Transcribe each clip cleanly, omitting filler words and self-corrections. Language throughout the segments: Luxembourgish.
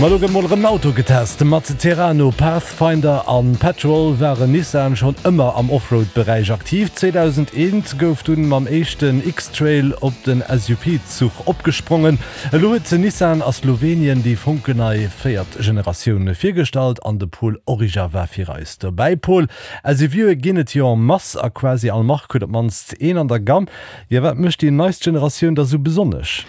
Ma lo gëtt mol erëm en Auto getest. Mat Terrano, Pathfinder an Patrol waren Nissan schonn ëmmer am Offroad-Beräich aktiv. 2001 gouf dunn mam éischten X-Trail op den SUV-Zuch opgesprongen. Elo huet Nissan a Slowenien déi fonkelnei véiert Generatioun virgestallt an de Paul Origer war fir eis dobäi. Paul, SUVe ginn et jo en masse a quasi all Mark huet op d'mannst een an der Gamme. Jo, wat mécht déi neist Generatioun da sou besonnesch?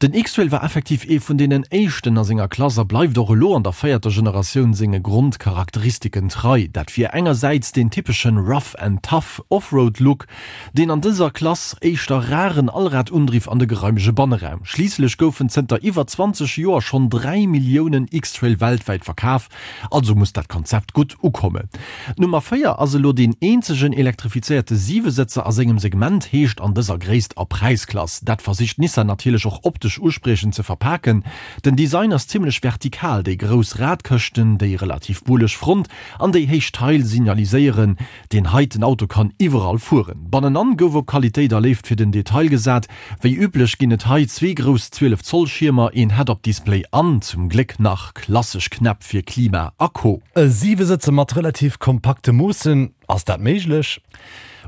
Den X-Trail war effektiv ee vun deenen éischten a senger Klass a bleift och elo an der véierter Generatioun senge Grondcharakteristiken trei. Dat wier engersäits deen typeschen rough and tough Offroad-Look, deen an dëser Klass éischter raren Allradundriff an de geraimege Banneraum. Schliisslech goufen zënter iwwer 20 Joer schonn 3 Milliounen X-Trail weltwäit verkaf, Also muss dat Konzept gutt ukommen. D'Nummer 4 ass elo deen eenzegen elektrifizéierte Siwesëtzer a sengem Segment, heescht an dëser Gréisst a Präisklass. Dat versicht Nissan natierlech och optesch uspriechend ze verpaken. Den Design ass zimmlech vertikal, déi grouss Radkëschten, déi relativ bulleg Front an déi héich Tail signaliséieren, Deen heiten Auto kann iwwerall fueren. Bannenan gouf op Qualitéit a Léift fir den Detail gesat. Wéi üblech ginn et hei zwee grouss 12 Zoll Schiermer, een Head-Up-Display an, zum Gléck nach, klassesch Knäpp fir Klima a Co. E Siwesëtzer mat relativ kompakte Moossen, ass dat méiglech?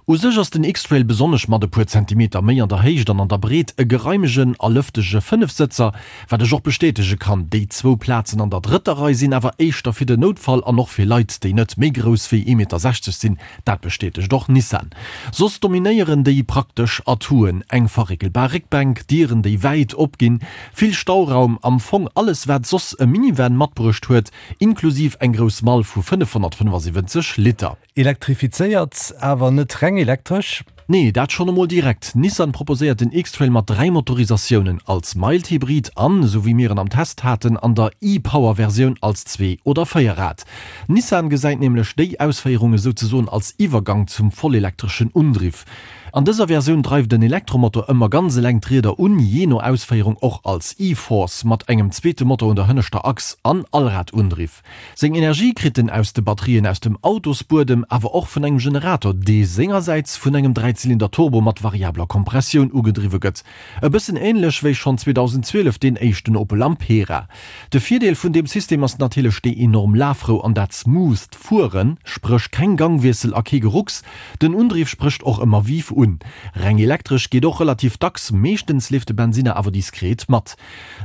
U sech ass den X-Trail besonnesch mat e puer Zentimeter méi an der Héicht an an der Breet e geraimegen a lëftege Fënnefsëtzer, Wat ech och bestätege kann, déi zwou Plazen an der drëtter Rei sinn awer éischter fir den Noutfall an och fir Leit, déi net méi grouss wéi ee Meter 60 sinn. Dat bestätegt och Nissan. Soss dominéieren déi praktesch Atouen, eng verréckelbar Réckbänk, Dieren, déi wäit opginn, vill Stauraum, am Fong alles wat soss e Minivan matbruecht huet, inklusiv eng grouss Mall vu 575 Liter. Elektrifizéiert, awer net reng elektresch. Nee, dat schonn emol direkt. Nissan proposéiert den X-Trail mat 3 Motorisatiounen, als Mild Hybrid an, esou wéi mir en am Test haten, an der e-Power-Versioun als Zwee oder Véierrad. Nissan gesäit nämlech déi Ausféierung esouzesoen als Iwwergang zum vollelektreschen Undriff. An dëser Versioun dreift en Elektromotor ëmmer ganz eleng d'Rieder un, jee no Ausféierung och als e-Force mat engem zweete Motor un der hënneschter Achs an Allradundriff. Seng Energie kritt en aus de Batterien aus dem Autosbuedem, awer och vun engem Generator, dee sengersäits vun engem Dräizylinder-Turbo mat variabler Kompressioun ugedriwwe gëtt. E bëssen änlech wéi schonn 2012 deen éischten Opel Ampera. De Virdeel vun deem System ass natierlech déi enorm Lafrou an dat smootht Fueren, spréch keng Gangwiessel a kee Gerucks. Den Undriff sprécht och ëmmer vive un. Reng elektresch geet och relativ dacks, meeschtens leeft de Bensinner awer diskret mat.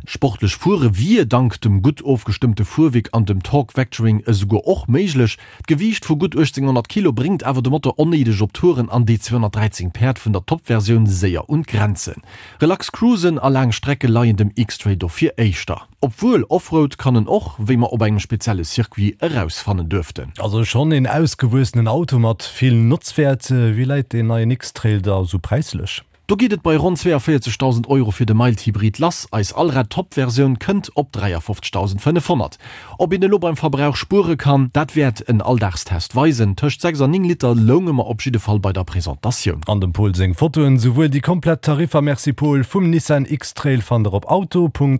Sportlech fuere wier dank dem gutt ofgestëmmte Fuerwierk an dem Torque Vectoring esouguer och méiglech. D'Gewiicht vu gutt 1800 Kilo bréngt awer de Motor onnéideg op Touren an déi 213 Päerd vun der Top-Versioun séier un d'Grenzen. Relax Cruisen a laang Strecke leien dem X-Trail dofir éischter. Obwuel, Offroad kann en och, wéi mer op engem spezielle Circuit erausfannen duerften. Also schonn een ausgewuessenen Auto mat vill Notzwäert. Wéi läit deen neien X-Trail da sou präislech? Do geet et bei ronn 42.000 Euro fir de Mild Hybrid lass, eis Allrad-Top-Versioun kënnt op 53.500. Ob een elo beim Verbrauch spuere kann, dat wäert en Alldagstest weisen. Tëscht 6 an 9 Liter lounge mer op jidde Fall bei der Presentatioun. An dem Paul seng Fotoen, souwuel déi komplett Tariffer, merci Paul, vum Nissan X-Trail fannt der op auto.rtl.lu.